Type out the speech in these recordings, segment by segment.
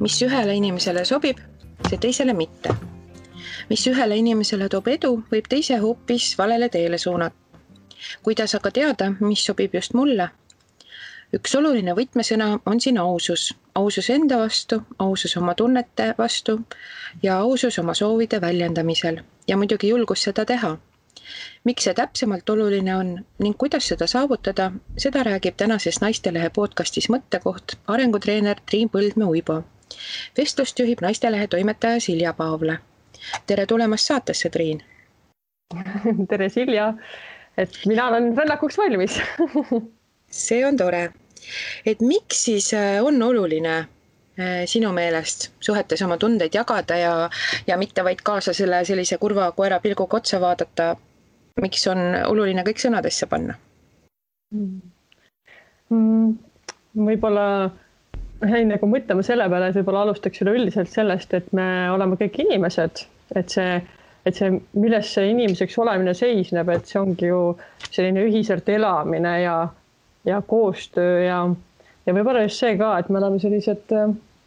mis ühele inimesele sobib, see teisele mitte. Mis ühele inimesele toob edu, võib teise hoopis valele teele suunata. Kuidas aga teada, mis sobib just mulle? Üks oluline võtmesõna on siin ausus. Ausus enda vastu, ausus oma tunnete vastu ja ausus oma soovide väljendamisel ja muidugi julgus seda teha. Miks see täpsemalt oluline on ning kuidas seda saavutada, seda räägib tänases Naistelehe podcastis Mõttekoht arengutreener Triin Põldmäe-Uibo. Vestlust juhib Naistelehe toimetaja Silja Paavla. Tere tulemast saatesse, Triin! Tere, Silja! Et mina olen rännakuks valmis. See on tore. Et miks siis on oluline sinu meelest suhetes oma tundeid jagada ja mitte vaid kaasa sellise kurva koera pilguga otsa vaadata? Miks on oluline kõik sõnadesse panna? Võib-olla enne kui mõtlema selle peale, et võib-olla alustaks üleüldiselt sellest, et me oleme kõik inimesed, et see, milles see inimeseks olemine seisneb, et see ongi ju selline ühiselt elamine ja koostöö ja võib-olla just see ka, et me oleme sellised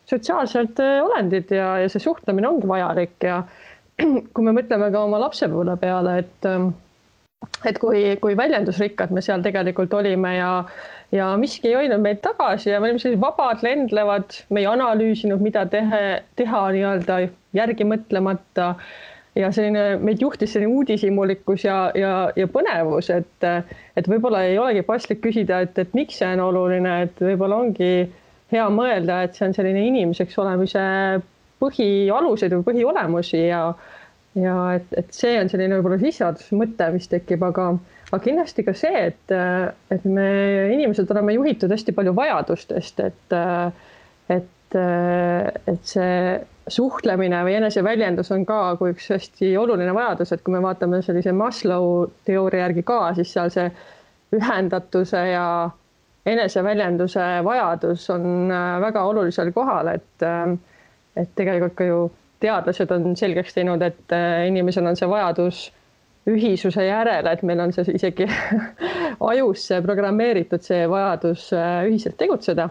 sotsiaalsed olendid ja see suhtlemine ongi vajalik ja kui me mõtleme ka oma lapsepõlve peale, et kui väljendusrikkad me seal tegelikult olime ja miski ei hoidnud meid tagasi ja me olime sellised vabad, lendlevad, me ei analüüsinud, mida teha nii-öelda järgi mõtlemata ja meid juhtis selline uudishimulikkus ja põnevus, et võib-olla ei olegi paslik küsida, et miks see on oluline, et võib-olla ongi hea mõelda, et see on selline inimeseks olemise põhialused või põhiolemusi ja et see on selline võib-olla sisseadusmõte, mis tekib, aga kindlasti ka see, et me inimesed oleme juhitud hästi palju vajadustest, et see suhtlemine või eneseväljendus on ka kui üks hästi oluline vajadus, et kui me vaatame sellise Maslow teooria järgi ka, siis seal see ühendatuse ja eneseväljenduse vajadus on väga olulisel kohal, et tegelikult ka ju teadlased on selgeks teinud, et inimesel on see vajadus ühisuse järele, et meil on see isegi ajusse programmeeritud see vajadus ühiselt tegutseda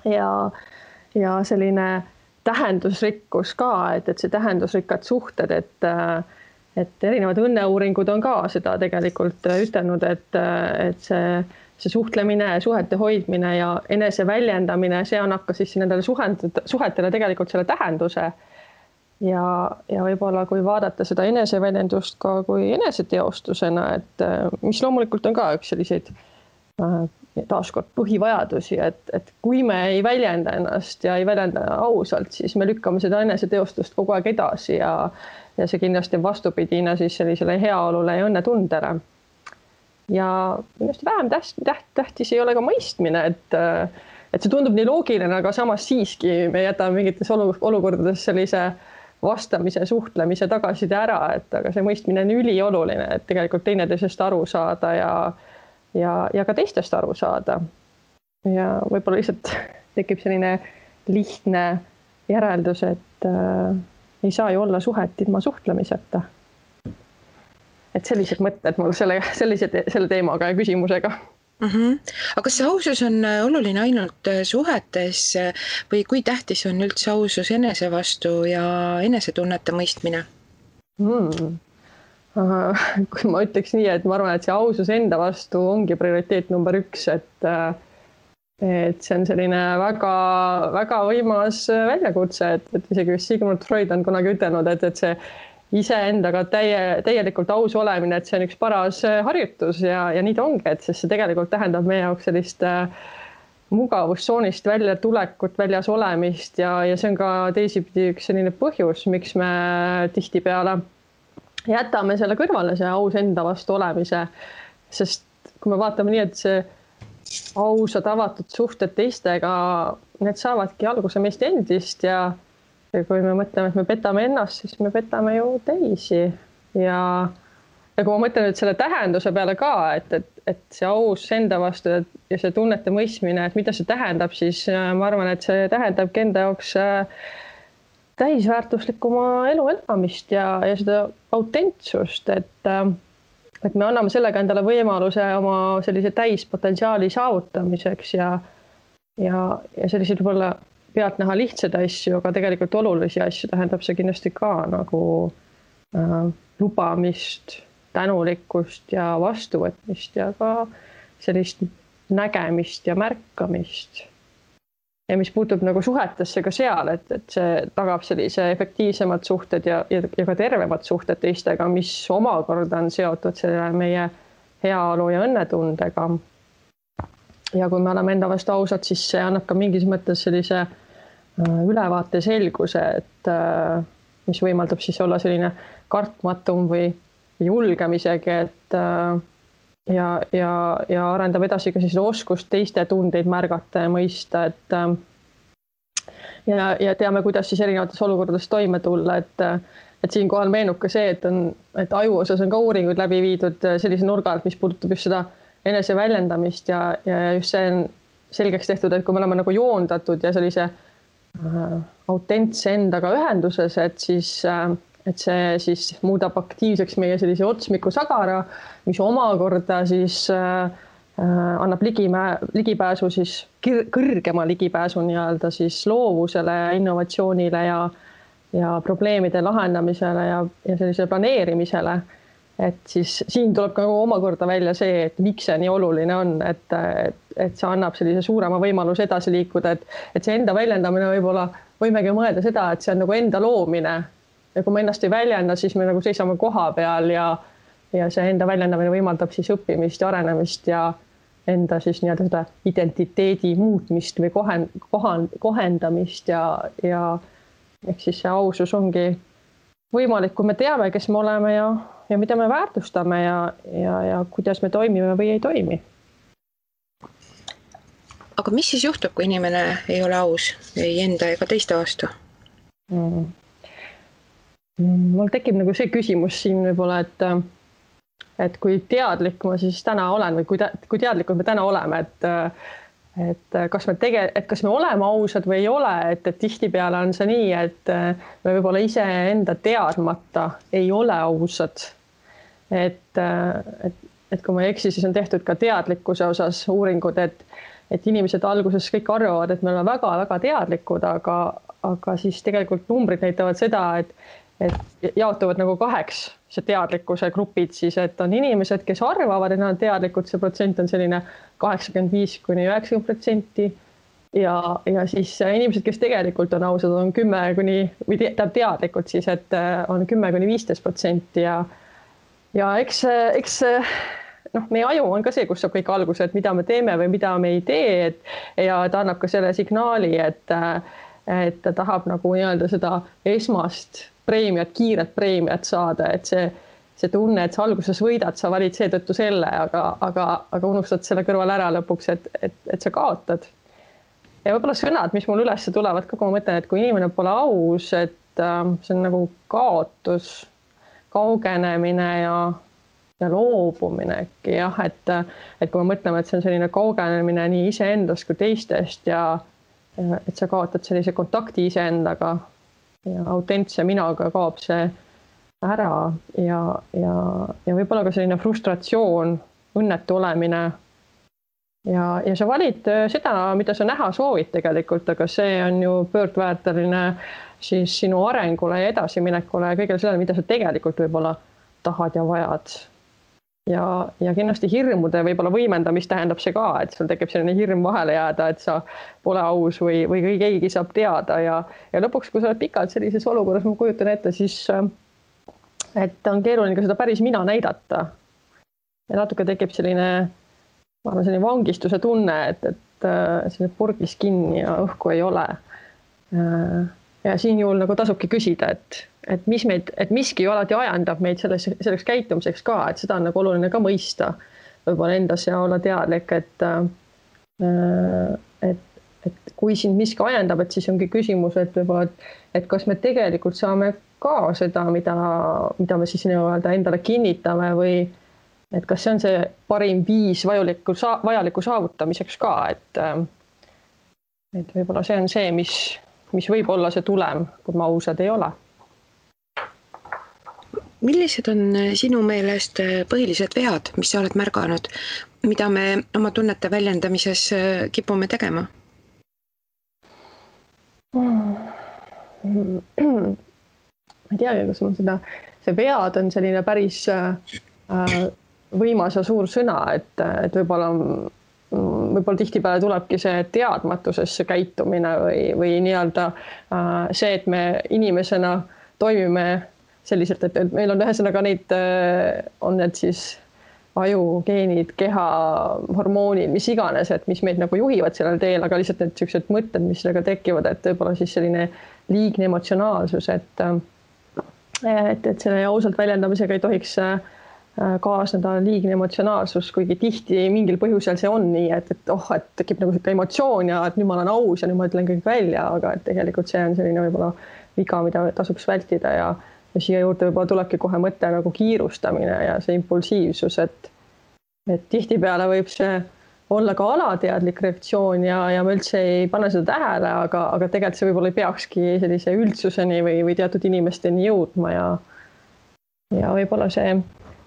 ja selline tähendusrikkus ka, et see tähendusrikkad suhted, et erinevad õnneuuringud on ka seda tegelikult ütelnud, et see suhtlemine, suhete hoidmine ja enese väljendamine, see annab ka siis nendele suhetele tegelikult selle tähenduse ja võib-olla kui vaadata seda eneseväljendust ka kui eneseteostusena, et mis loomulikult on ka üks selliseid taaskord põhivajadusi, et kui me ei väljenda ennast ja ei väljenda ausalt, siis me lükkame seda eneseteostust kogu aeg edasi ja see kindlasti on vastupidina siis sellisele heaolule ja õnnetundele. Ja kindlasti vähem tähtis ei ole ka mõistmine, et see tundub nii loogiline, aga samas siiski me jätame mingites olukordades sellise vastamise, suhtlemise tagaside ära, aga see mõistmine on ülioluline, et tegelikult teineteisest aru saada ja ka teistest aru saada. Ja võib-olla lihtsalt tekib selline lihtne järeldus, et ei saa ju olla suhet ilma suhtlemiseta. Et sellised mõtted mul selle teemaga ja küsimusega. Aga kas see ausus on oluline ainult suhetes või kui tähtis on üldse ausus enese vastu ja enesetunnete mõistmine? Kui ma ütleks nii, et ma arvan, et see ausus enda vastu ongi prioriteet number 1, et see on selline väga, väga võimas väljakutse, et isegi Sigmund Freud on kunagi ütelnud, et see iseendaga täielikult aus olemine, et see on üks paras harjutus ja nii ta ongi, et see tegelikult tähendab meie jaoks sellist mugavustsoonist välja tulekut, väljas olemist ja see on ka teisipidi üks selline põhjus, miks me tihtipeale jätame selle kõrvale, see aus enda vastu olemise, sest kui me vaatame nii, et see ausad avatud suhted teistega, need saavadki alguse meist endist ja kui me mõtleme, et me petame ennast, siis me petame ju teisi ja kui ma mõtlen nüüd selle tähenduse peale ka, et see aus enda vastu ja see tunnete mõistmine, et mida see tähendab, siis ma arvan, et see tähendabki enda jaoks täisväärtuslikuma elu elamist ja seda autentsust, et me anname sellega endale võimaluse oma sellise täispotentsiaali saavutamiseks ja sellised võib-olla pealt näha lihtsaid asju, aga tegelikult olulisi asju tähendab see kindlasti ka nagu lubamist, tänulikkust ja vastuvõtmist ja ka sellist nägemist ja märkamist. Ja mis puutub nagu suhetesse ka seal, et see tagab sellise efektiivsemad suhted ja ka tervemad suhted teistega, mis omakorda on seotud selle meie heaolu ja õnnetundega. Ja kui me oleme enda vastu ausad, siis see annab ka mingis mõttes sellise ülevaate selguse, et mis võimaldab siis olla selline kartmatum või julgem isegi, et ja arendab edasi ka siis oskust teiste tundeid märgata ja mõista, ja teame, kuidas siis erinevates olukordades toime tulla, et siinkohal meenub ka see, et aju osas on ka uuringuid läbi viidud sellise nurga alt, mis puudutab just seda eneseväljendamist ja just see on selgeks tehtud, et kui me oleme nagu joondatud ja sellise autentse endaga ühenduses, et see siis muudab aktiivseks meie sellise otsmiku sagara, mis omakorda siis annab ligipääsu siis kõrgema ligipääsu nii-öelda siis loovusele, innovatsioonile ja probleemide lahendamisele ja sellisele planeerimisele. Et siis siin tuleb ka omakorda välja see, et miks see nii oluline on, et see annab sellise suurema võimaluse edasi liikuda, et see enda väljendamine võib-olla võimegi mõelda seda, et see on nagu enda loomine. Ja kui me ennast ei väljenda, siis me nagu seisame koha peal ja see enda väljendamine võimaldab siis õppimist ja arenemist ja enda siis nii-öelda seda identiteedi muutmist või kohendamist ja ehk siis see ausus ongi võimalik, kui me teame, kes me oleme ja mida me väärtustame ja kuidas me toimime või ei toimi. Aga mis siis juhtub, kui inimene ei ole aus ei enda ega teiste vastu? Mul tekib nagu see küsimus siin võib-olla, et kui teadlik ma siis täna olen või kui teadlikud me täna oleme, et kas me oleme ausad või ei ole, et tihtipeale on see nii, et me võib-olla ise enda teadmata ei ole ausad. Et kui ma ei eksi, siis on tehtud ka teadlikkuse osas uuringud, et inimesed alguses kõik arvavad, et me oleme väga-väga teadlikud, aga siis tegelikult numbrid näitavad seda, et jaotuvad nagu 2 see teadlikkuse grupid siis, et on inimesed, kes arvavad, et nad on teadlikud, see protsent on selline 85–90% ja siis inimesed, kes tegelikult on ausad, on 10 või teadlikud siis, et on 10–15% ja eks meie aju on ka see, kus saab kõik alguse, et mida me teeme või mida me ei tee, ja ta annab ka selle signaali, et ta tahab nagu nii-öelda seda esmast preemiat, kiiret preemiat saada, et see tunne, et sa alguses võidad, sa valid seetõttu selle, aga unustad selle kõrval ära lõpuks, et sa kaotad. Ja võib-olla sõnad, mis mul üles tulevad ka, kui ma mõtlen, et kui inimene pole aus, et see on nagu kaotus, kaugenemine ja loobumine äkki, jah, et kui me mõtleme, et see on selline kaugenemine nii iseendast kui teistest ja et sa kaotad sellise kontakti iseendaga ja autentse minaga kaob see ära ja võib-olla ka selline frustratsioon, õnnetu olemine ja sa valid seda, mida sa näha soovid tegelikult, aga see on ju pöördväärteline siis sinu arengule ja edasiminekule ja kõigele sellele, mida sa tegelikult võib-olla tahad ja vajad. Ja kindlasti hirmude võib-olla võimendamist tähendab see ka, et sul tekib selline hirm vahele jääda, et sa pole aus või keegi saab teada ja lõpuks, kui sa oled pikalt sellises olukorras, ma kujutan ette, siis et on keeruline ka seda päris mina näidata. Ja natuke tekib selline vangistuse tunne, et selline purgis kinni ja õhku ei ole. Ja siin juhul nagu tasubki küsida, et miski ju alati ajendab meid selleks käitumiseks ka, et seda on nagu oluline ka mõista võib-olla endas ja olla teadlik, et kui sind miski ajendab, et siis ongi küsimus, et kas me tegelikult saame ka seda, mida me siis endale kinnitame või et kas see on see parim viis vajaliku saavutamiseks ka, et võib-olla see on see, mis võib olla see tulem, kui me ausad ei ole. Millised on sinu meelest põhilised vead, mis sa oled märganud, mida me oma tunnete väljendamises kipume tegema? Ma ei teagi, kas mul see vead on selline päris võimas ja suur sõna, et võib-olla tihtipeale tulebki see teadmatusesse käitumine või nii-öelda see, et me inimesena toimime selliselt, et meil on ühesõnaga neid, on need siis ajugeenid, keha, hormoonid, mis iganes, et mis meid nagu juhivad sellel teel, aga lihtsalt need sellised mõtted, mis sellega tekivad, et võib-olla siis selline liigne emotsionaalsus, et selle ausalt väljendamisega ei tohiks kaasneda liigne emotsionaalsus, kuigi tihti mingil põhjusel see on nii, et tekib nagu selline emotsioon ja et nüüd ma olen aus ja nüüd ma ütlen kõik välja, aga et tegelikult see on selline võib-olla viga, mida tasuks vältida ja siia juurde võib-olla tulebki kohe mõte nagu kiirustamine ja see impulsiivsus, et tihtipeale võib see olla ka alateadlik reaktsioon ja me üldse ei pane seda tähele, aga tegelikult see võib-olla ei peakski sellise üldsuseni või teatud inimesteni jõudma ja võib-olla see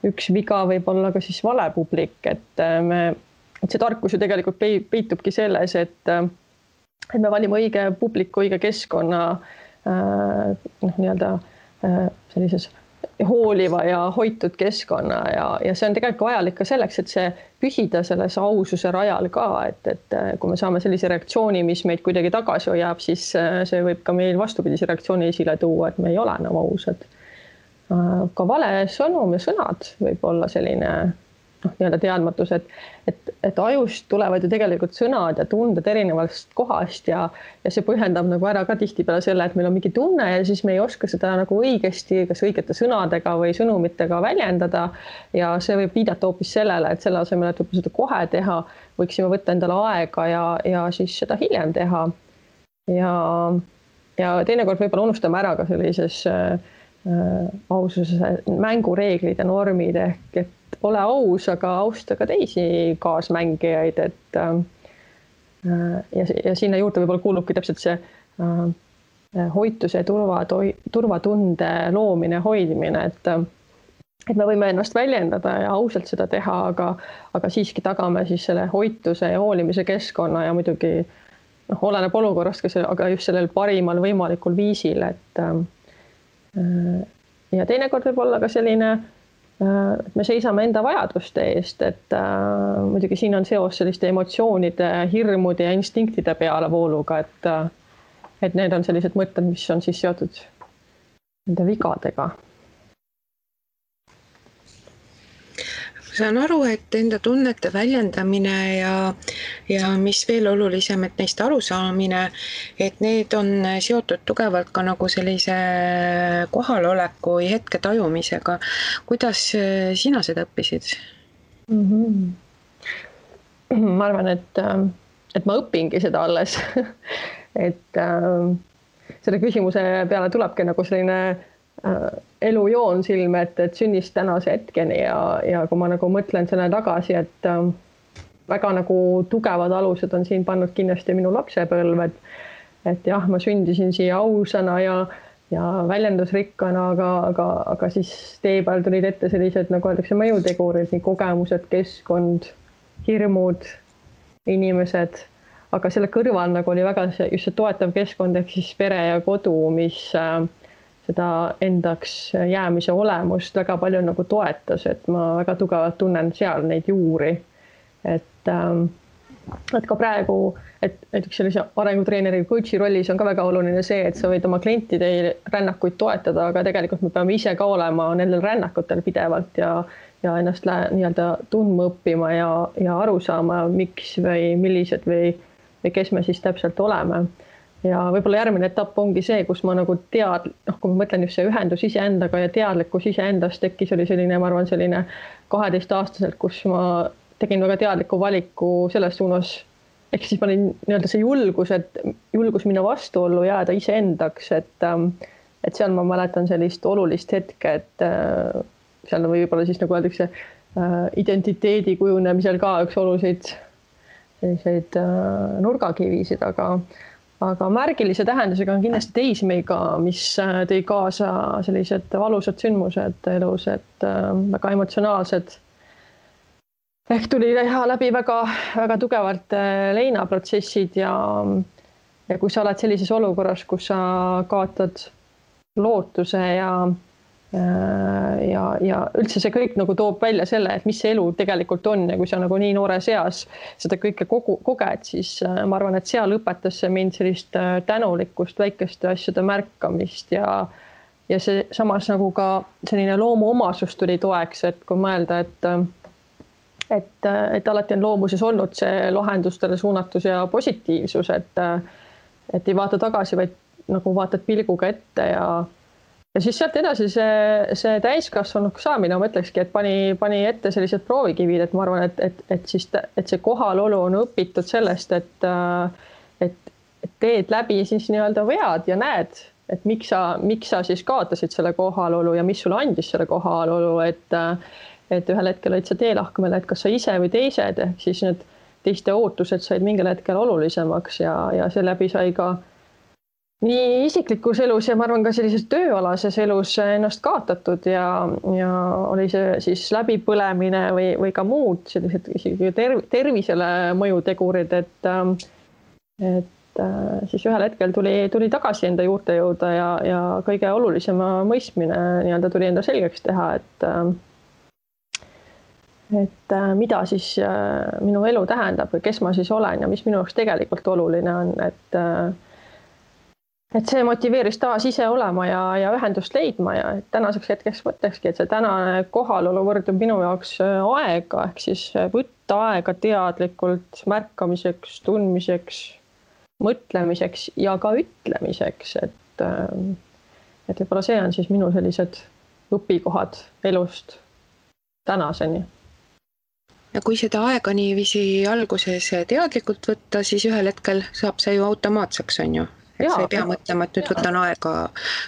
üks viga võib olla ka siis vale publik, et see tarkus ju tegelikult peitubki selles, et me valime õige publiku, õige keskkonna nii-öelda sellises hooliva ja hoitud keskkonna ja see on tegelikult vajalik ka selleks, et see püsida selles aususe rajal ka, et kui me saame sellise reaktsiooni, mis meid kuidagi tagasi hoiab, siis see võib ka meil vastupidise reaktsiooni esile tuua, et me ei ole enam ausad. Ka vale sõnum ja sõnad võib olla selline nii-öelda teadmatus, et ajust tulevad ju tegelikult sõnad ja tunded erinevast kohast ja see põhjendab nagu ära ka tihtipeale selle, et meil on mingi tunne ja siis me ei oska seda nagu õigesti, kas õigete sõnadega või sõnumitega väljendada ja see võib viidata hoopis sellele, et selle asemel, et seda kohe teha, võiksime võtta endale aega ja siis seda hiljem teha. Ja teinekord võib-olla unustame ära ka sellises aususe mängureeglid ja normid et ole aus, aga austa ka teisi kaasmängijaid, ja sinna juurde võib-olla kuulubki täpselt see hoituse ja turvatunde loomine, hoidmine, et me võime ennast väljendada ja ausalt seda teha, aga siiski tagame siis selle hoituse ja hoolimise keskkonna ja muidugi oleneb olukorrast, aga just sellel parimal võimalikul viisil, et ja teinekord võib olla ka selline, et me seisame enda vajaduste eest, et muidugi siin on seos selliste emotsioonide, hirmude ja instinktide pealevooluga, et need on sellised mõtted, mis on siis seotud nende vigadega. Saan aru, et enda tunnete väljendamine ja mis veel olulisem, et neist arusaamine, et need on seotud tugevalt ka nagu sellise kohaloleku või hetke tajumisega. Kuidas sina seda õppisid? Ma arvan, et ma õpingi seda alles. et selle küsimuse peale tulebki nagu selline elujoon silme, et sünnist tänase hetkeni ja kui ma nagu mõtlen selle tagasi, et väga nagu tugevad alused on siin pannud kindlasti minu lapsepõlved, et jah, ma sündisin siia ausana ja väljendusrikkana, aga siis tee peal tulid ette sellised, nagu öeldakse, mõjutegurid, nii kogemused, keskkond, hirmud, inimesed, aga selle kõrval nagu oli väga just see toetav keskkond ehk siis pere ja kodu, mis seda endaks jäämise olemust väga palju nagu toetas, et ma väga tugevalt tunnen seal neid juuri. Et ka praegu, et näiteks sellise arengutreeneri coachi rollis on ka väga oluline see, et sa võid oma klientide rännakuid toetada, aga tegelikult me peame ise ka olema nendel rännakutel pidevalt ja ennast nii-öelda tundma õppima ja aru saama, miks või millised või kes me siis täpselt oleme. Ja võib-olla järgmine etapp ongi see, kus ma nagu kui ma mõtlen just see ühendus iseendaga ja teadlikkus iseendast tekkis, oli selline, ma arvan, selline 12-aastaselt, kus ma tegin väga teadliku valiku selles suunas, ehk siis ma olin nii-öelda see julgus minna vastuollu, jääda iseendaks, et seal ma mäletan sellist olulist hetke, et seal võib-olla siis nagu öeldakse identiteedi kujunemisel ka üks oluliseid selliseid nurgakivisid, aga märgilise tähendusega on kindlasti teisi meiga, mis tõi kaasa sellised valusad sündmused elus, et väga emotsionaalsed. Ehk tuli läbi väga, väga tugevalt leinaprotsessid ja ja kui sa oled sellises olukorras, kus sa kaotad lootuse ja üldse see kõik nagu toob välja selle, et mis see elu tegelikult on ja kui sa nagu nii noores eas seda kõike koged, siis ma arvan, et seal õpetas see mind sellist tänulikkust, väikeste asjade märkamist ja see samas nagu ka selline loomuomasus tuli toeks, et kui mõelda, et alati on loomuses olnud see lahendustele suunatus ja positiivsus, et ei vaata tagasi, vaid nagu vaatad pilguga ette ja siis sealt edasi see täiskasvanuks saamine, ma ütlekski, et pani ette sellised proovikivid, et ma arvan, et see kohalolu on õpitud sellest, et teed läbi siis nii-öelda vead ja näed, et miks sa siis kaotasid selle kohalolu ja mis sulle andis selle kohalolu, et ühel hetkel olid sa teelahkmel, et kas sa ise või teised, ehk siis need teiste ootused said mingil hetkel olulisemaks ja seeläbi sai ka nii isiklikus elus ja ma arvan ka sellises tööalases elus ennast kaotatud ja oli see siis läbipõlemine või ka muud sellised isegi tervisele mõjutegurid, et siis ühel hetkel tuli tagasi enda juurte jõuda ja kõige olulisema mõistmine nii-öelda tuli enda selgeks teha, et mida siis minu elu tähendab või kes ma siis olen ja mis minu jaoks tegelikult oluline on, et see motiveeris taas ise olema ja ühendust leidma ja tänaseks hetkeks mõtlekski, et see tänane kohalolu võrdub minu jaoks aega, ehk siis võtta aega teadlikult märkamiseks, tundmiseks, mõtlemiseks ja ka ütlemiseks, et võib-olla see on siis minu sellised õpikohad elust tänaseni. Ja kui seda aega niiviisi alguses teadlikult võtta, siis ühel hetkel saab see ju automaatseks, on ju? Et sa ei pea mõtlema, et nüüd võtan aega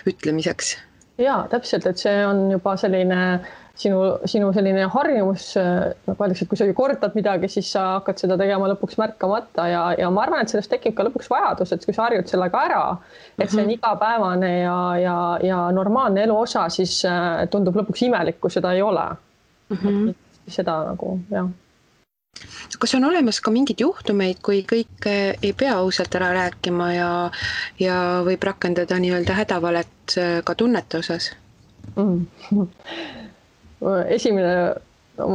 ütlemiseks. Jaa, täpselt, et see on juba selline sinu selline harjumus, nagu öeldakse, et kui sa ju kordad midagi, siis sa hakkad seda tegema lõpuks märkamata ja ma arvan, et sellest tekib ka lõpuks vajadus, et kui sa harjud sellega ära, et see on igapäevane ja normaalne elu osa, siis tundub lõpuks imelik, kui seda ei ole. Seda nagu, jah. Kas on olemas ka mingid juhtumeid, kui kõik ei pea ausalt ära rääkima ja võib rakendada nii-öelda hädavalet ka tunnete osas? Esimene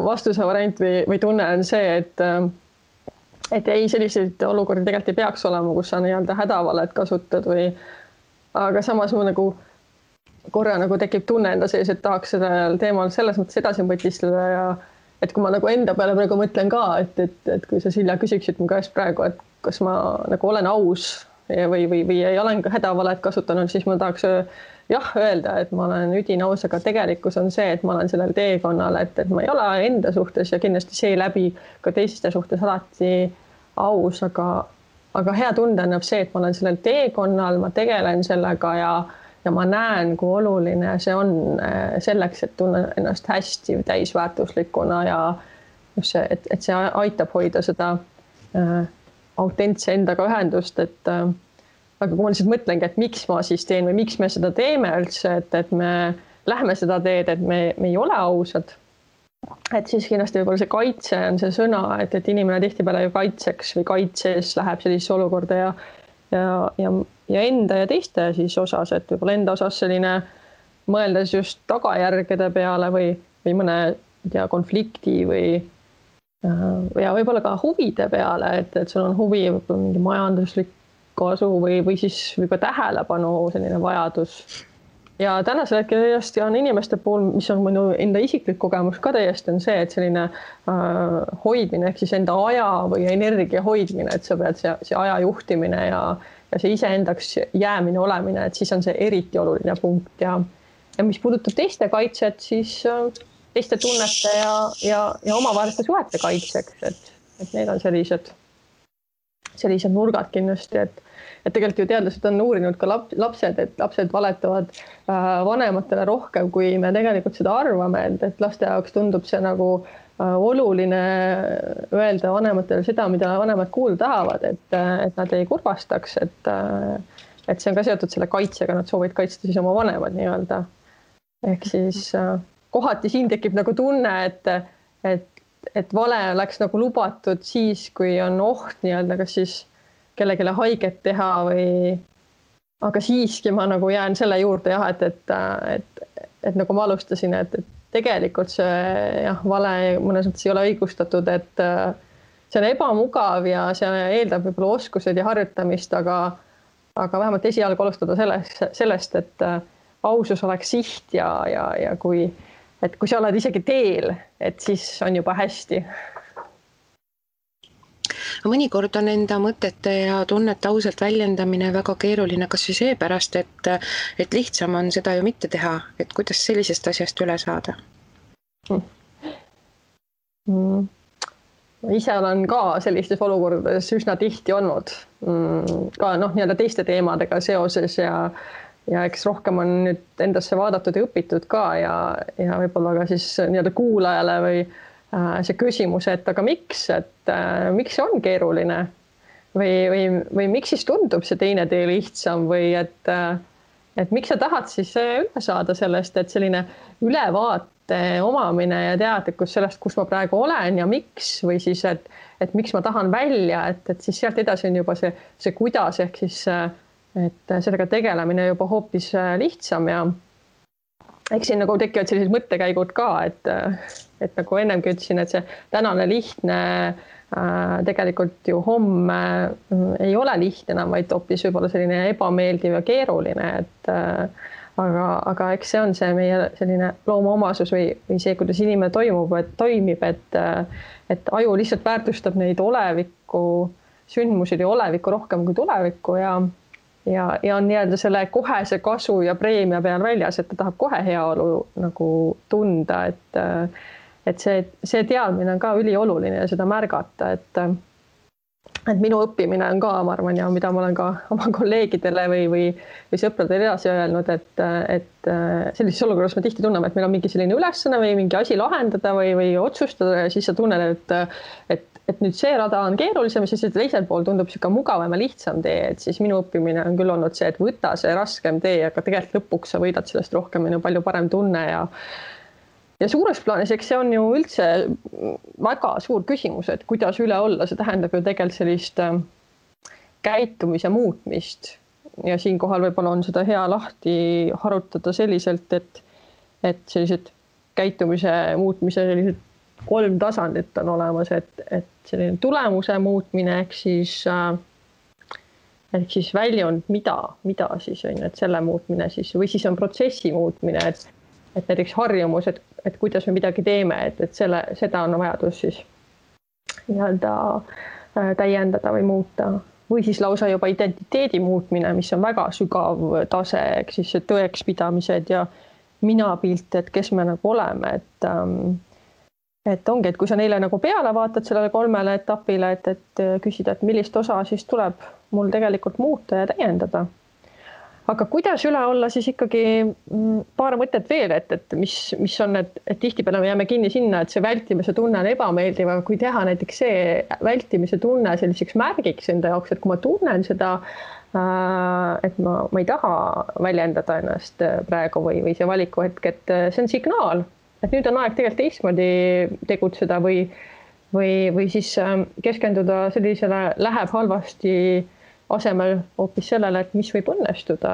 vastuse variant või tunne on see, et ei, selliseid olukordi tegelikult ei peaks olema, kus sa nii-öelda hädavalet kasutad aga samas mu nagu korra nagu tekib tunne enda sees, et tahaks sellel teemal selles mõttes edasi mõtistleda ja et kui ma nagu enda peale praegu mõtlen ka, et kui sa Silja küsiksid mu käest praegu, et kas ma nagu olen aus või ei olen ka hädavalet kasutanud, siis ma tahaks jah öelda, et ma olen üdine aus, aga tegelikkus on see, et ma olen sellel teekonnal, et ma ei ole enda suhtes ja kindlasti seeläbi ka teiste suhtes alati aus, aga hea tunde annab see, et ma olen sellel teekonnal, ma tegelen sellega ja ma näen, kui oluline see on selleks, et tunnen ennast hästi täisväärtuslikuna ja just see, et see aitab hoida seda autentse endaga ühendust, aga kui ma lihtsalt mõtlengi, et miks ma siis teen või miks me seda teeme üldse, et me lähme seda teed, et me ei ole ausad, et siis kindlasti võib-olla see kaitse on see sõna, et inimene tihtipeale ju kaitseks või kaitses läheb sellisesse olukorda ja enda ja teiste siis osas, et võib-olla enda osas selline mõeldes just tagajärgede peale või mõne konflikti ja võib-olla ka huvide peale, et sul on huvi võib-olla mingi majanduslik kasu või siis või ka tähelepanu selline vajadus. Ja tänasel hetkel täiesti on inimeste puhul, mis on minu enda isiklik kogemus ka täiesti on see, et selline hoidmine ehk siis enda aja või energia hoidmine, et sa pead see aja juhtimine ja see iseendaks jäämine olemine, et siis on see eriti oluline punkt ja mis puudutab teiste kaitset, siis teiste tunnete ja omavaheliste suhete kaitseks, et need on sellised nurgad kindlasti, et tegelikult ju teadlased on uurinud ka lapsed, et lapsed valetavad vanematele rohkem, kui me tegelikult seda arvame, et laste jaoks tundub see nagu oluline öelda vanematele seda, mida vanemad kuulda tahavad, et nad ei kurvastaks, et see on ka seotud selle kaitsega, nad soovivad kaitsta siis oma vanemad nii-öelda. Ehk siis kohati siin tekib nagu tunne, et vale oleks nagu lubatud siis, kui on oht nii-öelda, kas siis kellelegi haiget teha või, aga siiski ma nagu jään selle juurde jah, et nagu ma alustasin, et tegelikult see jah, vale mõnes mõttes ei ole õigustatud, et see on ebamugav ja see eeldab võib-olla oskused ja harjutamist, aga vähemalt esialgu alustada sellest, et ausus oleks siht ja kui sa oled isegi teel, et siis on juba hästi. Mõnikord on enda mõtete ja tunnete ausalt väljendamine väga keeruline, kas või seepärast, et lihtsam on seda ju mitte teha, et kuidas sellisest asjast üle saada? Ise olen ka sellistes olukordades üsna tihti olnud, ka nii-öelda teiste teemadega seoses ja eks rohkem on nüüd endasse vaadatud ja õpitud ka ja võib-olla ka siis nii-öelda kuulajale või see küsimus, et aga miks see on keeruline või miks siis tundub see teine tee lihtsam või et miks sa tahad siis üle saada sellest, et selline ülevaate omamine ja teadlikkus sellest, kus ma praegu olen ja miks või siis, et miks ma tahan välja, et siis sealt edasi on juba see kuidas ehk siis, et sellega tegelemine juba hoopis lihtsam ja eks siin nagu tekivad sellised mõttekäigud ka, et nagu ennemgi ütlesin, et see tänane lihtne tegelikult ju homme ei ole lihtne enam, vaid hoopis võib-olla selline ebameeldiv ja keeruline, aga eks see on see meie selline loomuomasus või see, kuidas inimene toimib, et aju lihtsalt väärtustab neid oleviku sündmusid ja olevikku rohkem kui tulevikku ja on nii-öelda selle kohese kasu ja preemia peal väljas, et ta tahab kohe heaolu nagu tunda, et see teadmine on ka ülioluline ja seda märgata, et minu õppimine on ka, ma arvan, ja mida ma olen ka oma kolleegidele või sõpradele edasi öelnud, et sellises olukorras me tihti tunneme, et meil on mingi selline ülesanne või mingi asi lahendada või otsustada ja siis sa tunned, et nüüd see rada on keerulisem ja siis teisel pool tundub siuke mugavam ja lihtsam tee, et siis minu õppimine on küll olnud see, et võta see raskem tee, aga tegelikult lõpuks sa võidad sellest rohkem ja palju parem tunne ja suures plaanis, eks see on ju üldse väga suur küsimus, et kuidas üle olla, see tähendab ju tegelikult sellist käitumise muutmist ja siinkohal võib-olla on seda hea lahti harutada selliselt, et sellised käitumise muutmise sellised 3 tasandit on olemas, et selline tulemuse muutmine ehk siis väljund, mida siis on, et selle muutmine siis või siis on protsessi muutmine, et näiteks harjumus, et kuidas me midagi teeme, et seda on vajadus siis nii-öelda täiendada või muuta või siis lausa juba identiteedi muutmine, mis on väga sügav tase, ehk siis tõekspidamised ja minapilt, et kes me nagu oleme, et ongi, et kui sa neile nagu peale vaatad sellele 3 etapile, et küsida, et millist osa siis tuleb mul tegelikult muuta ja täiendada. Aga kuidas üle olla siis ikkagi paar mõtet veel, et mis on, et tihtipeale me jääme kinni sinna, et see vältimise tunne on ebameeldiv, aga kui teha näiteks see vältimise tunne selliseks märgiks enda jaoks, et kui ma tunnen seda, et ma ei taha väljendada ennast praegu või see valikuhetk, et see on signaal, et nüüd on aeg tegelikult teistmoodi tegutseda või siis keskenduda sellisele läheb halvasti asemel hoopis sellele, et mis võib õnnestuda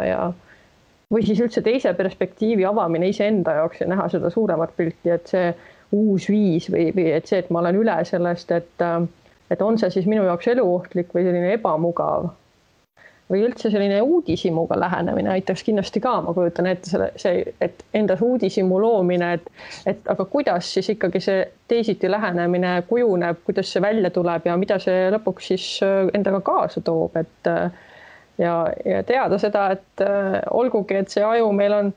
või siis üldse teise perspektiivi avamine iseenda jaoks ja näha seda suuremat pilti, et see uus viis või et see, et ma olen üle sellest, et on see siis minu jaoks eluohtlik või selline ebamugav või üldse selline uudishimuga lähenemine aitaks kindlasti ka, ma kujutan ette et endas uudishimu loomine, et aga kuidas siis ikkagi see teisiti lähenemine kujuneb, kuidas see välja tuleb ja mida see lõpuks siis endaga kaasa toob, ja teada seda, et olgugi, et see aju meil on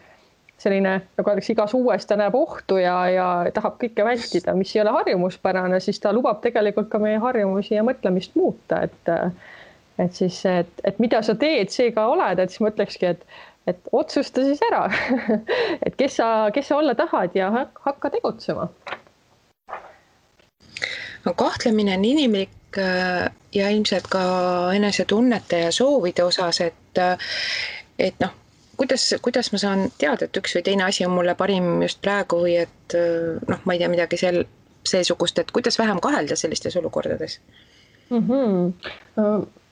selline, nagu öeldakse, igas uues ta näeb ohtu ja tahab kõike vältida, mis ei ole harjumuspärane, siis ta lubab tegelikult ka meie harjumusi ja mõtlemist muuta, et siis, et mida sa teed, see ka oled, et siis mõtlekski, et otsusta siis ära, et kes sa olla tahad ja hakka tegutsema. No, kahtlemine on inimlik ja ilmselt ka enesetunnete ja soovide osas, et noh, kuidas ma saan teada, et üks või teine asi on mulle parim just praegu või et noh, ma ei tea midagi seesugust, et kuidas vähem kahelda sellistes olukordades?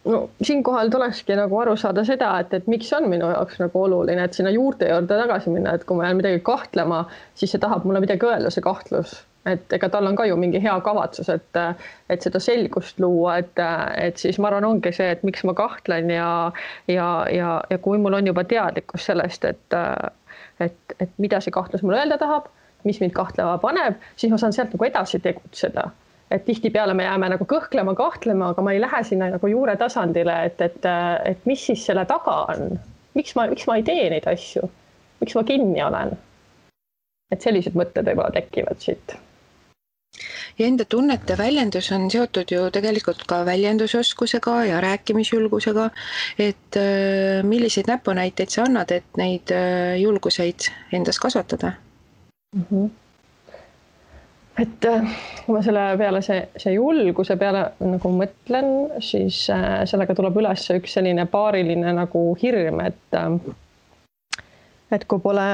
no siinkohal tulekski nagu aru saada seda, et miks on minu jaoks nagu oluline, et sinna juurte juurde tagasi minna, et kui ma jään midagi kahtlema, siis see tahab mulle midagi öelda, see kahtlus. Et ega tal on ka ju mingi hea kavatsus, et seda selgust luua, et siis ma arvan, ongi see, et miks ma kahtlen ja kui mul on juba teadlikkus sellest, et mida see kahtlus mulle öelda tahab, mis mind kahtlema paneb, siis ma saan sealt nagu edasi tegutseda. Et tihtipeale me jääme nagu kõhklema, kahtlema, aga ma ei lähe sinna nagu juure tasandile, et mis siis selle taga on. Miks ma ei tee neid asju? Miks ma kinni olen? Et sellised mõtted võib-olla tekivad siit. Ja enda tunnete väljendus on seotud ju tegelikult ka väljendusoskusega ja rääkimisjulgusega, et milliseid näpunäiteid sa annad, et neid julguseid endas kasvatada? Et kui ma selle peale see julguse peale nagu mõtlen, siis sellega tuleb üles üks selline paariline nagu hirm, et kui pole,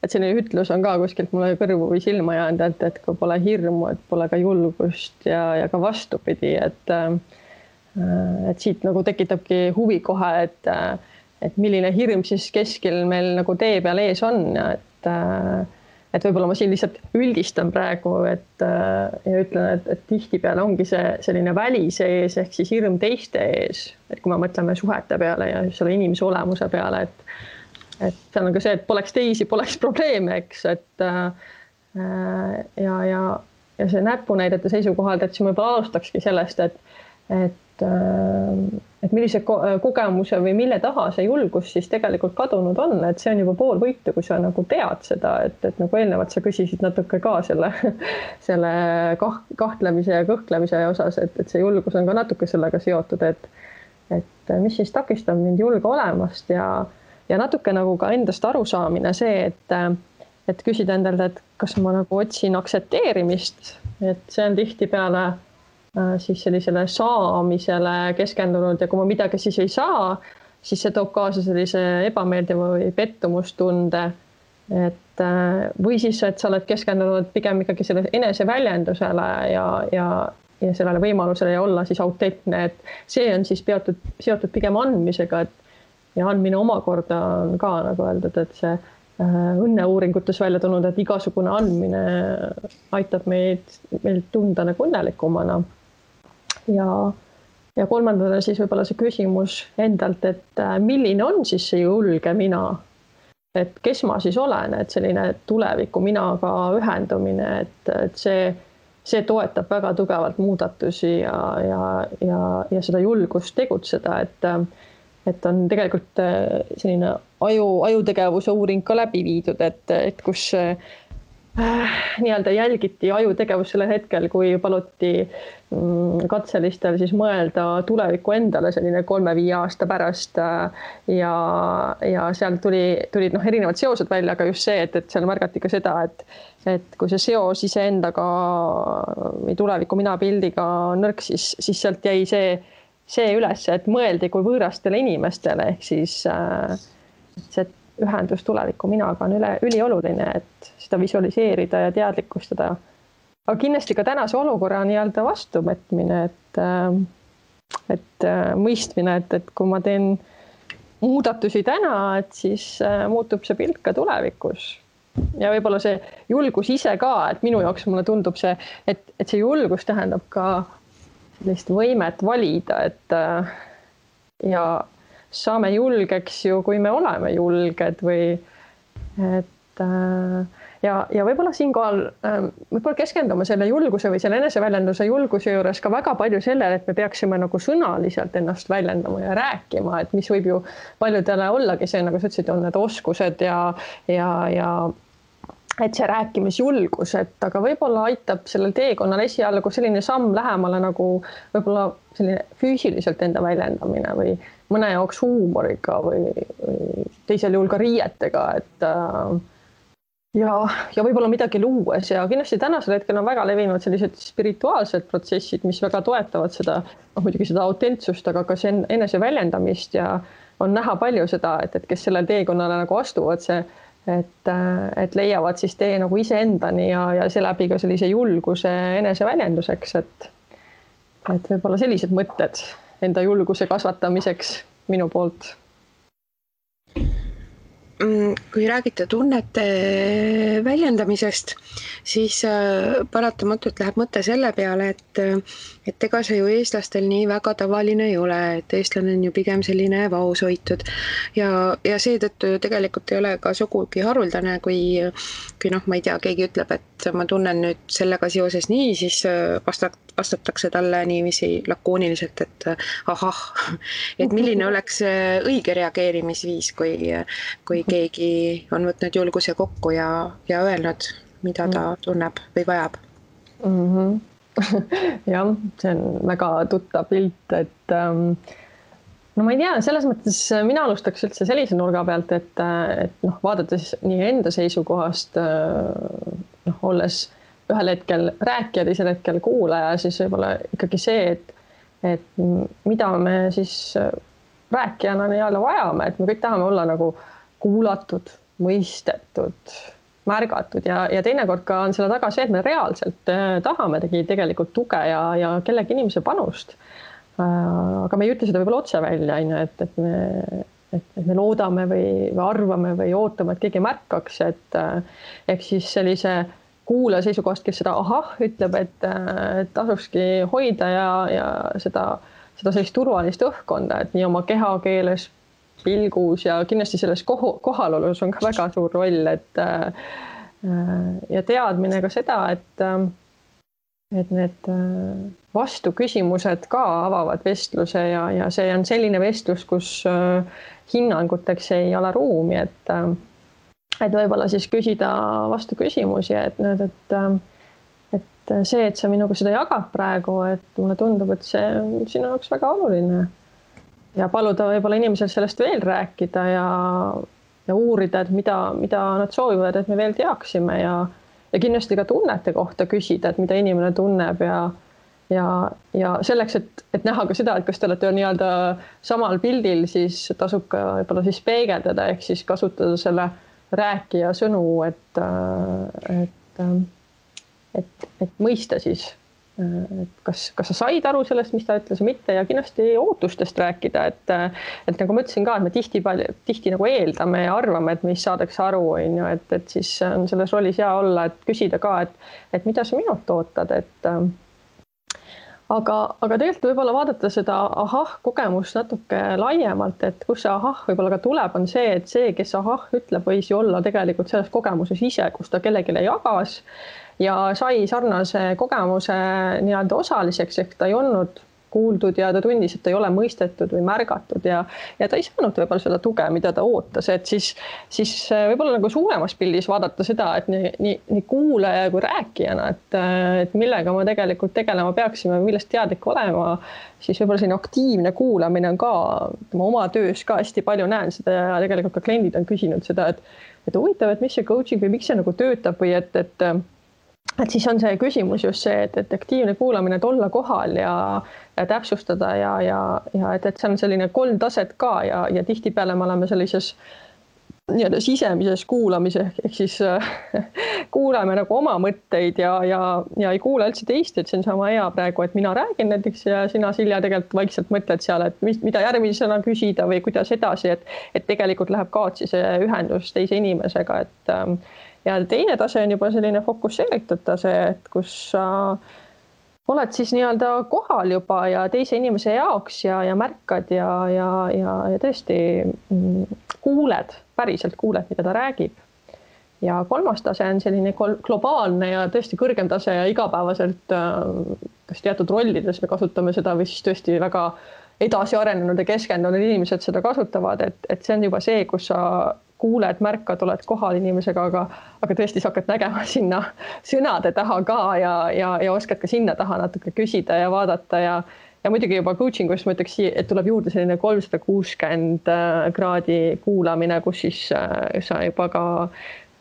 et selline ütlus on ka kuskilt mulle kõrvu või silma jäänud, et kui pole hirmu, et pole ka julgust ja ka vastupidi, et siit nagu tekitabki huvi kohe, et milline hirm siis keskel meil nagu tee peal ees on, et võib-olla ma siin lihtsalt üldistan praegu, ja ütlen, et tihtipeale ongi see selline välise ees ehk siis hirm teiste ees, et kui me mõtleme suhete peale ja selle inimese olemuse peale, et see on ka see, et poleks teisi, poleks probleeme, eks, ja see näpunäidete seisukohalt, et siis ma võib-olla alustakski sellest, et millise kogemuse või mille taha see julgus siis tegelikult kadunud on, et see on juba pool võitu, kui sa nagu tead seda, et nagu eelnevalt sa küsisid natuke ka selle kahtlemise ja kõhklemise osas, et see julgus on ka natuke sellega seotud, et mis siis takistab mind julge olemast ja natuke nagu ka endast arusaamine see, et küsida endalt, et kas ma nagu otsin aktsepteerimist, et see on tihtipeale siis sellisele saamisele keskendunud ja kui ma midagi siis ei saa, siis see toob kaasa sellise ebameeldiva või pettumustunde, või siis, et sa oled keskendunud pigem ikkagi selle eneseväljendusele ja sellele võimalusele ja olla siis autentne, et see on siis seotud pigem andmisega, ja andmine omakorda on ka nagu öeldud, et see õnneuuringutes välja tulnud, et igasugune andmine aitab meil tunda nagu õnnelikumana. Ja kolmandana siis võib-olla see küsimus endalt, et milline on siis see julge mina, et kes ma siis olen, et selline tuleviku minaga ühendumine, et see toetab väga tugevalt muudatusi ja seda julgust tegutseda, et on tegelikult selline ajutegevuse uuring ka läbi viidud, et kus nii-öelda jälgiti ajutegevus sellel hetkel, kui paluti katselistel siis mõelda tuleviku endale selline 3-5 aasta pärast ja seal tulid erinevad seosed välja, aga just see, et seal märgati ka seda, et kui see seos iseendaga või tuleviku mina pildiga nõrk, siis sealt jäi see üles, et mõeldi kui võõrastele inimestele, ehk siis see ühendus tuleviku minaga on ülioluline, et seda visualiseerida ja teadlikustada. Aga kindlasti ka tänase olukorra nii-öelda vastuvõtmine, et mõistmine, et kui ma teen muudatusi täna, et siis muutub see pilt ka tulevikus. Ja võib-olla see julgus ise ka, et minu jaoks mulle tundub see, et see julgus tähendab ka sellist võimet valida, ja saame julgeks ju, kui me oleme julged ja võib-olla siinkohal võib-olla keskendume selle julguse või selle eneseväljenduse julguse juures ka väga palju sellele, et me peaksime nagu sõnaliselt ennast väljendama ja rääkima, et mis võib ju paljudele ollagi see, nagu sa ütlesid, on need oskused ja et see rääkimisjulgus, aga võib-olla aitab sellel teekonnal esialgu selline samm lähemale nagu võib-olla selline füüsiliselt enda väljendamine või mõne jaoks huumoriga või teisel juhul ka riietega, ja võib-olla midagi luues ja kindlasti tänasel hetkel on väga levinud sellised spirituaalsed protsessid, mis väga toetavad seda, muidugi seda autentsust, aga ka see eneseväljendamist ja on näha palju seda, et kes sellel teekonnale nagu astuvad et leiavad siis tee nagu iseendani ja seeläbi ka sellise julguse eneseväljenduseks, et võib-olla sellised mõtted enda julguse kasvatamiseks minu poolt. Kui räägite tunnete väljendamisest, siis paratamatult läheb mõte selle peale, et ega see ju eestlastel nii väga tavaline ei ole, et eestlane on ju pigem selline vaoshoitud ja seetõttu ju tegelikult ei ole ka sugugi haruldane, kui ma ei tea, keegi ütleb, et ma tunnen nüüd sellega seoses nii, siis vastatakse talle niiviisi lakooniliselt, et ahah, et milline oleks õige reageerimisviis, kui keegi on võtnud julguse kokku ja öelnud, mida ta tunneb või vajab. Jah, see on väga tuttav pilt, et no ma ei tea, selles mõttes mina alustaks üldse sellise nurga pealt, et vaadates nii enda seisukohast, olles ühel hetkel rääkija, teisel hetkel kuulaja, siis võib-olla ikkagi see, et mida me siis rääkijana nii-öelda vajame, et me kõik tahame olla nagu kuulatud, mõistetud, märgatud ja teinekord ka on selle taga see, et me reaalselt tahame tegelikult tuge ja kellegi inimese panust. Aga me ei ütle seda võib-olla otse välja, et me loodame või arvame või ootame, et keegi märkaks, et ehk siis sellise kuulaja seisukohast, kes seda ahah ütleb, et tasukski hoida ja seda sellist turvalist õhkkonda, et nii oma kehakeeles, pilgus ja kindlasti selles kohalolus on ka väga suur roll, et ja teadmine ka seda, et need vastuküsimused ka avavad vestluse ja see on selline vestlus, kus hinnanguteks ei ole ruumi, et võib-olla siis küsida vastu küsimusi, et see, et sa minuga seda jagad praegu, et mulle tundub, et see on sinu jaoks väga oluline. Ja paluda võib-olla inimesel sellest veel rääkida ja uurida, et mida nad soovivad, et me veel teaksime ja kindlasti ka tunnete kohta küsida, et mida inimene tunneb ja selleks, et näha ka seda, et kas te olete nii-öelda samal pildil, siis tasub ka võib-olla siis peegeldada, ehk siis kasutada selle rääkija sõnu, et mõista siis, et kas sa said aru sellest, mis ta ütles või mitte ja kindlasti ootustest rääkida, et nagu ma ütlesin ka, et me tihti nagu eeldame ja arvame, et meist saadakse aru, et siis on selles rollis hea olla, et küsida ka, et mida sa minult ootad, aga tegelikult võib-olla vaadata seda ahah kogemust natuke laiemalt, et kus see ahah võib-olla ka tuleb, on see, et see, kes ahah ütleb, võis ju olla tegelikult selles kogemuses ise, kus ta kellelegi jagas ja sai sarnase kogemuse nii-öelda osaliseks, ehk ta ei olnud kuuldud ja ta tundis, et ta ei ole mõistetud või märgatud ja ta ei saanud võib-olla seda tuge, mida ta ootas, et siis võib-olla nagu suuremas pildis vaadata seda, et nii kuulaja kui rääkijana, et millega ma tegelikult tegelema peaksime, millest teadlik olema, siis võib-olla selline aktiivne kuulamine on ka oma töös ka hästi palju näen seda ja tegelikult ka kliendid on küsinud seda, et huvitav, et mis see coaching või miks see nagu töötab või et siis on see küsimus just see, et aktiivne kuulamine, et olla kohal ja täpsustada ja et see on selline 3 taset ka ja tihtipeale me oleme sellises nii-öelda sisemises kuulamises, ehk siis kuulame nagu oma mõtteid ja ei kuule üldse teist, et see on sama hea praegu, et mina räägin näiteks ja sina, Silja, tegelikult vaikselt mõtled seal, et mida järgmisena küsida või kuidas edasi, et tegelikult läheb kaotsi see ühendus teise inimesega, ja teine tase on juba selline fokusseeritud tase, et kus sa oled siis nii-öelda kohal juba ja teise inimese jaoks ja märkad ja tõesti kuuled, päriselt kuuled, mida ta räägib. Ja 3. tase on selline globaalne ja tõesti kõrgem tase ja igapäevaselt kas teatud rollides me kasutame seda või siis tõesti väga edasi arenenud ja keskendunud inimesed seda kasutavad, et see on juba see, kus sa kuuled, märkad, oled kohal inimesega, aga tõesti sa hakkad nägema sinna sõnade taha ka ja oskad ka sinna taha natuke küsida ja vaadata ja muidugi juba coachingus ma ütleks, et tuleb juurde selline 360 kraadi kuulamine, kus siis sa juba ka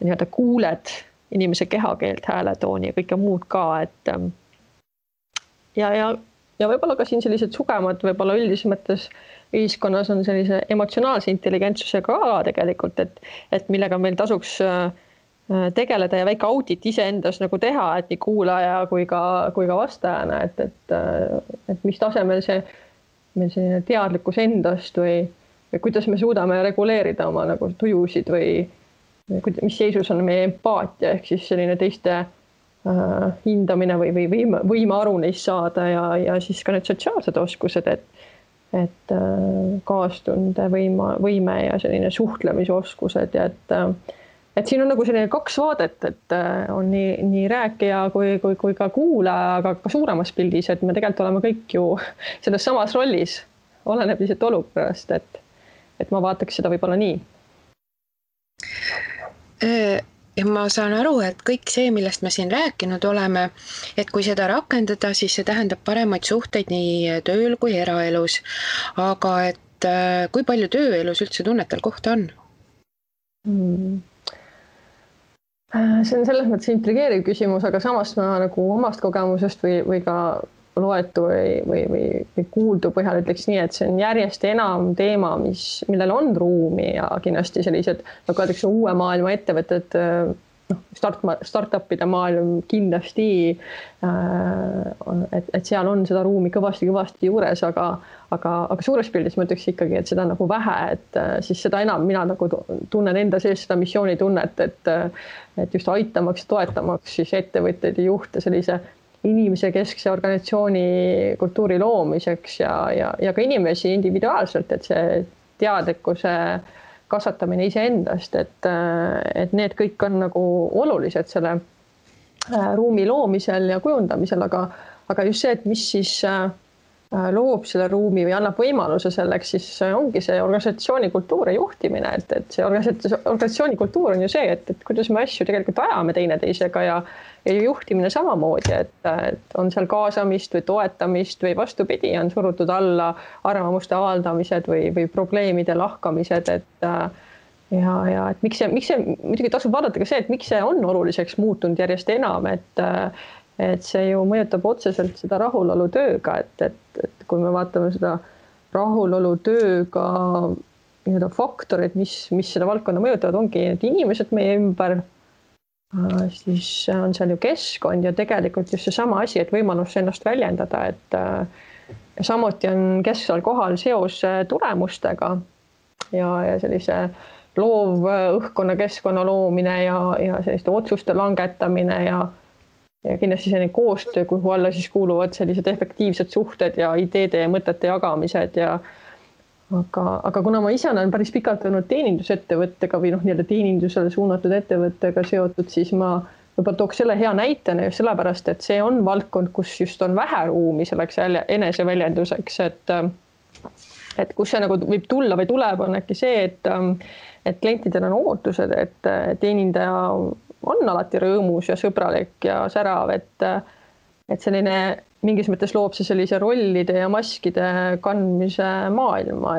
nii-öelda kuuled inimese kehakeelt, hääletooni ja kõike muud ka, et ja võib-olla ka siin sellised sugemad, võib-olla üldises mõttes ühiskonnas on sellise emotsionaalse intelligentsusega ka tegelikult, et millega meil tasuks tegeleda ja väike audit iseendas nagu teha, et nii kuulaja kui ka vastajana, et mis tasemel see meil selline teadlikkus endast või kuidas me suudame reguleerida oma nagu tujusid või mis seisus on meie empaatia ehk siis selline teiste hindamine või võime aru neist saada ja siis ka need sotsiaalsed oskused, et kaastunde võime ja selline suhtlemisoskused ja et siin on nagu selline kaks vaadet, et on nii rääkija kui ka kuulaja, aga ka suuremas pildis, et me tegelikult oleme kõik ju selles samas rollis, oleneb lihtsalt olukorrast, et ma vaataks seda võib-olla nii. Ja ma saan aru, et kõik see, millest me siin rääkinud oleme, et kui seda rakendada, siis see tähendab paremaid suhteid nii tööl kui eraelus. Aga et kui palju tööelus üldse tunnetel kohta on? See on selles mõttes intrigeeriv küsimus, aga samas ma nagu omast kogemusest või ka loetu või kuuldu põhjal ütleks nii, et see on järjest enam teema, millel on ruumi ja kindlasti sellised, nagu öeldakse, uue maailma ettevõtted, startupide maailm kindlasti, et seal on seda ruumi kõvasti juures, aga suures pildis ma ütleks ikkagi, et seda nagu vähe, et siis seda enam mina nagu tunnen enda sees seda missioonitunnet, et just aitamaks ja toetamaks siis ettevõtteid ja juhte sellise inimese keskse organisatsiooni kultuuri loomiseks ja ka inimesi individuaalselt, et see teadlikkuse kasvatamine iseendast, et need kõik on nagu olulised selle ruumi loomisel ja kujundamisel, aga just see, et mis siis loob selle ruumi või annab võimaluse selleks, siis ongi see organisatsiooni kultuur ja juhtimine, et see organisatsiooni kultuur on ju see, et kuidas me asju tegelikult ajame teineteisega ja juhtimine samamoodi, et on seal kaasamist või toetamist või vastupidi, on surutud alla arvamuste avaldamised või probleemide lahkamised, et miks see, muidugi tasub vaadata ka see, et miks see on oluliseks muutunud järjest enam, et see ju mõjutab otseselt seda rahulolu tööga, et kui me vaatame seda rahulolu tööga nii-öelda faktorid, mis seda valdkonda mõjutavad, ongi need inimesed meie ümber, siis on seal ju keskkond ja tegelikult just seesama asi, et võimalus ennast väljendada, et samuti on kesksel kohal seos tulemustega ja sellise loov õhkkonna keskkonna loomine ja selliste otsuste langetamine ja kindlasti selline koostöö, kuhu alla siis kuuluvad sellised efektiivsed suhted ja ideede ja mõtete jagamised aga kuna ma ise olen päris pikalt olnud teenindusettevõttega või nii-öelda teenindusele suunatud ettevõttega seotud, siis ma võib-olla tooks selle hea näitena just sellepärast, et see on valdkond, kus just on vähe ruumi selleks eneseväljenduseks, et kus see nagu võib tulla või tuleb, on äkki see, et klientidel on ootused, et teenindaja on alati rõõmus ja sõbralik ja särav, et selline mingis mõttes loob see sellise rollide ja maskide kandmise maailma,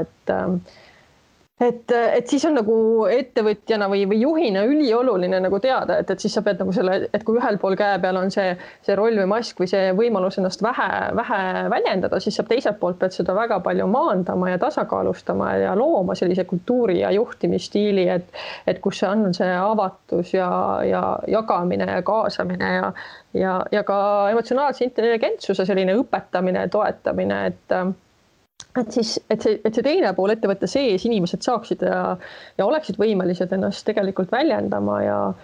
et siis on nagu ettevõtjana või juhina ülioluline nagu teada, et siis sa pead nagu selle, et kui ühel pool käe peal on see roll või mask või see võimalus ennast vähe väljendada, siis sa teiselt poolt pead seda väga palju maandama ja tasakaalustama ja looma sellise kultuuri ja juhtimisstiili, et kus see on see avatus ja jagamine ja kaasamine ja ka emotsionaalse intelligentsuse selline õpetamine, toetamine, et see teine pool ettevõtte sees inimesed saaksid ja oleksid võimelised ennast tegelikult väljendama ja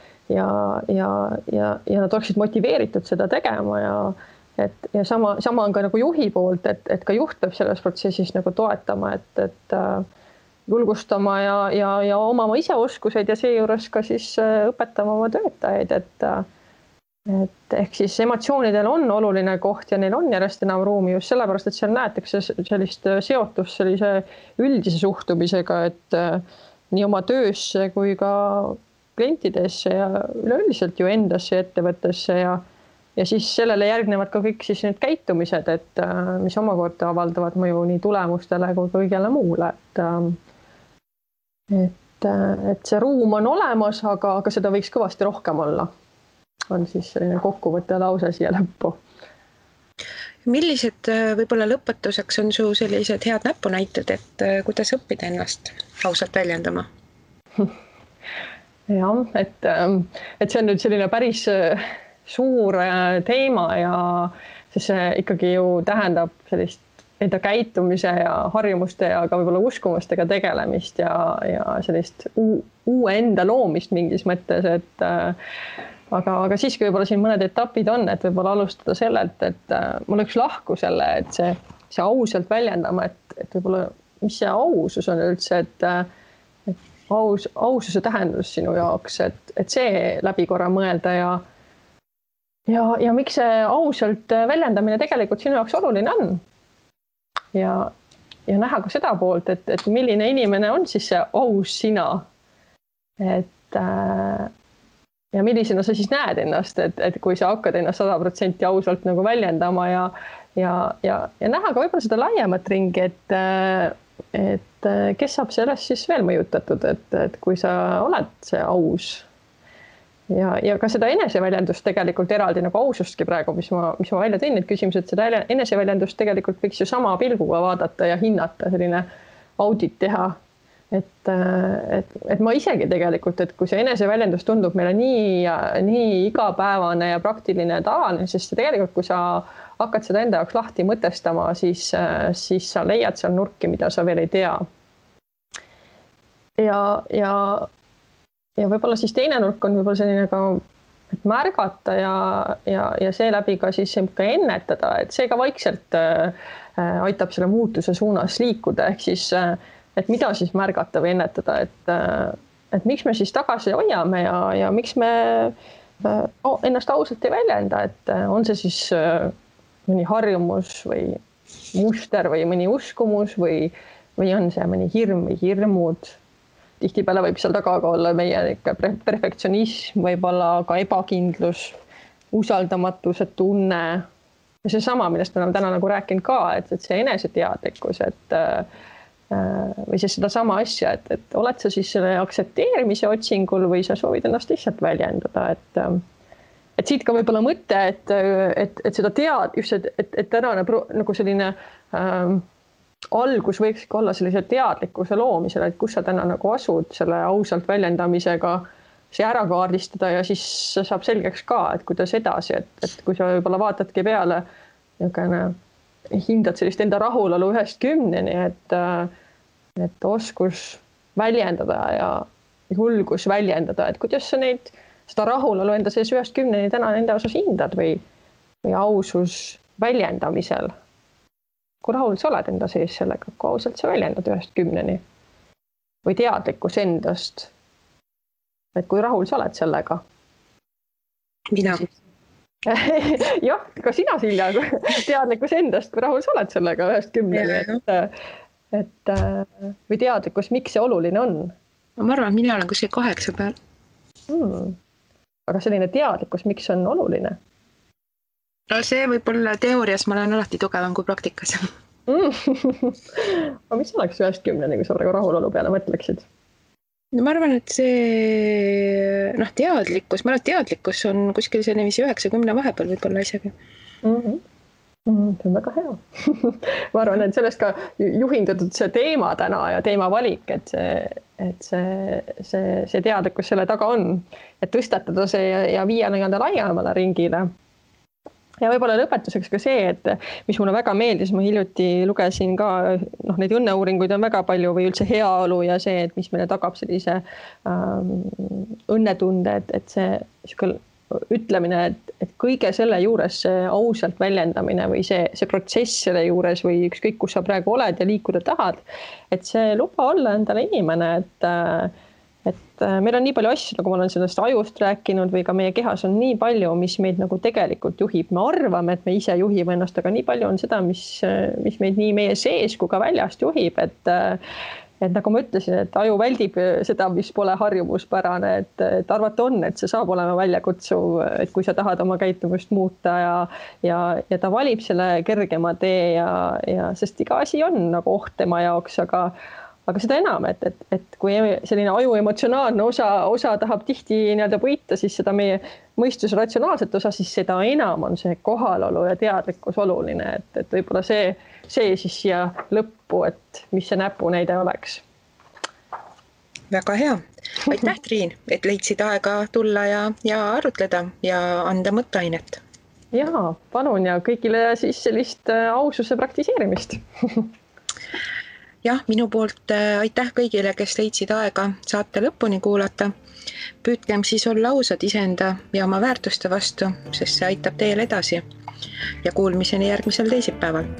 nad oleksid motiveeritud seda tegema ja sama on ka nagu juhi poolt, et ka juht peab selles protsessis nagu toetama, et julgustama ja omama ise oskuseid ja seejuures ka siis õpetama oma töötajaid, et ehk siis emotsioonidel on oluline koht ja neil on järjest enam ruumi just sellepärast, et seal näetakse sellist seotust sellise üldise suhtumisega, et nii oma töösse kui ka klientidesse ja üleüldiselt ju endasse ettevõttesse ja siis sellele järgnevad ka kõik siis need käitumised, et mis omakorda avaldavad mõju nii tulemustele kui kõigele muule, et see ruum on olemas, aga seda võiks kõvasti rohkem olla. On siis selline kokkuvõtte lause siia lõppu. Millised võib-olla lõpetuseks on su sellised head näpunäited, et kuidas õppida ennast ausalt väljendama? Jah, et see on nüüd selline päris suur teema ja see ikkagi ju tähendab sellist enda käitumise ja harjumuste ja ka võib-olla uskumustega tegelemist ja sellist uue enda loomist mingis mõttes, et aga siiski võib-olla siin mõned etapid on, et võib-olla alustada sellelt, et mul üks lahku selle, et see ausalt väljendama, et võib-olla mis see ausus on üldse, et aususe tähendus sinu jaoks, et see läbi korra mõelda ja miks see ausalt väljendamine tegelikult sinu jaoks oluline on. Ja näha ka seda poolt, et milline inimene on siis see aus sina. Ja millisena sa siis näed ennast, et kui sa hakkad ennast 100% ausalt nagu väljendama ja näha ka võib-olla seda laiemat ringi, et kes saab sellest siis veel mõjutatud, et kui sa oled see aus ja ka seda eneseväljendust tegelikult eraldi nagu ausustki praegu, mis ma välja tõin, need küsimused, seda eneseväljendust tegelikult võiks ju sama pilguga vaadata ja hinnata, selline audit teha, et ma isegi tegelikult, et kui see eneseväljendus tundub meile nii igapäevane ja praktiline ja tavaline, sest tegelikult, kui sa hakkad seda enda jaoks lahti mõtestama, siis sa leiad seal nurki, mida sa veel ei tea. Ja võib-olla siis teine nurk on võib-olla selline ka, et märgata ja seeläbi ka siis ka ennetada, et see ka vaikselt aitab selle muutuse suunas liikuda, ehk siis et mida siis märgata või ennetada, et miks me siis tagasi hoiame ja miks me ennast ausalt ei väljenda, et on see siis mõni harjumus või muster või mõni uskumus või on see mõni hirm või hirmud. Tihtipeale võib seal taga ka olla meie perfektsionism, võib-olla ka ebakindlus, usaldamatuse tunne ja see sama, millest me oleme täna nagu rääkinud ka, et see eneseteadlikkus, või siis seda sama asja, et oled sa siis selle aktsepteerimise otsingul või sa soovid ennast lihtsalt väljendada, et siit ka võib-olla mõte, et seda just, et tänane nagu selline algus võikski olla sellise teadlikkuse loomisele, et kus sa täna nagu asud selle ausalt väljendamisega, see ära kaardistada ja siis saab selgeks ka, et kuidas edasi, et kui sa võib-olla vaatadki peale, hindad sellist enda rahulolu 1-10, et oskus väljendada ja julgus väljendada, et kuidas sa seda rahulolu enda sees 1-10 täna enda osas hindad või ausus väljendamisel. Kui rahul sa oled enda sees sellega, kui ausalt sa väljendad 1-10 või teadlikkus endast, et kui rahul sa oled sellega? Mina. Jah, ka sina, Silja, teadlikkus endast, kui rahul sa oled sellega 1-10, või teadlikkus, miks see oluline on? Ma arvan, et mina olen kuskil 8 peal. Aga selline teadlikkus, miks on oluline? No see võib olla teoorias, ma olen alati tugevam kui praktikas. Aga mis oleks 1-10, kui sa praegu rahulolu peale mõtleksid? No ma arvan, et see teadlikkus, teadlikkus on kuskil selline 9-10 vahepeal võib-olla isegi. See on väga hea. Ma arvan, et sellest ka juhindatud see teema täna ja teema valik, et see teadlikkus selle taga on, et tõstatada see ja viia laiemale ringile. Ja võib-olla lõpetuseks ka see, et mis mulle väga meeldis, ma hiljuti lugesin ka, neid õnneuuringuid on väga palju või üldse heaolu ja see, et mis meile tagab sellise õnnetunde, et see ütlemine, et kõige selle juures see ausalt väljendamine või see protsess selle juures või ükskõik, kus sa praegu oled ja liikuda tahad, et see luba olla endale inimene, et meil on nii palju asju, nagu ma olen sellest ajust rääkinud või ka meie kehas on nii palju, mis meid nagu tegelikult juhib. Me arvame, et me ise juhime ennast, aga nii palju on seda, mis meid nii meie sees kui ka väljast juhib, et nagu ma ütlesin, et aju väldib seda, mis pole harjumuspärane, et arvata on, et see saab olema väljakutsuv, et kui sa tahad oma käitumist muuta ja ta valib selle kergema tee ja sest iga asi on nagu oht tema jaoks, aga seda enam, et kui selline aju emotsionaalne osa tahab tihti võita, siis seda meie mõistuse ratsionaalset osa, siis seda enam on see kohalolu ja teadlikkus oluline, et võib-olla see siis siia lõppu, et mis see näpunäide oleks. Väga hea. Aitäh, Triin, et leidsid aega tulla ja arutleda ja anda mõtteainet. Jaa, palun ja kõigile siis sellist aususe praktiseerimist. Jah, minu poolt aitäh kõigile, kes leidsid aega saate lõpuni kuulata. Püüdkem siis olla ausad iseenda ja oma väärtuste vastu, sest see aitab teel edasi. Ja kuulmiseni järgmisel teisipäeval.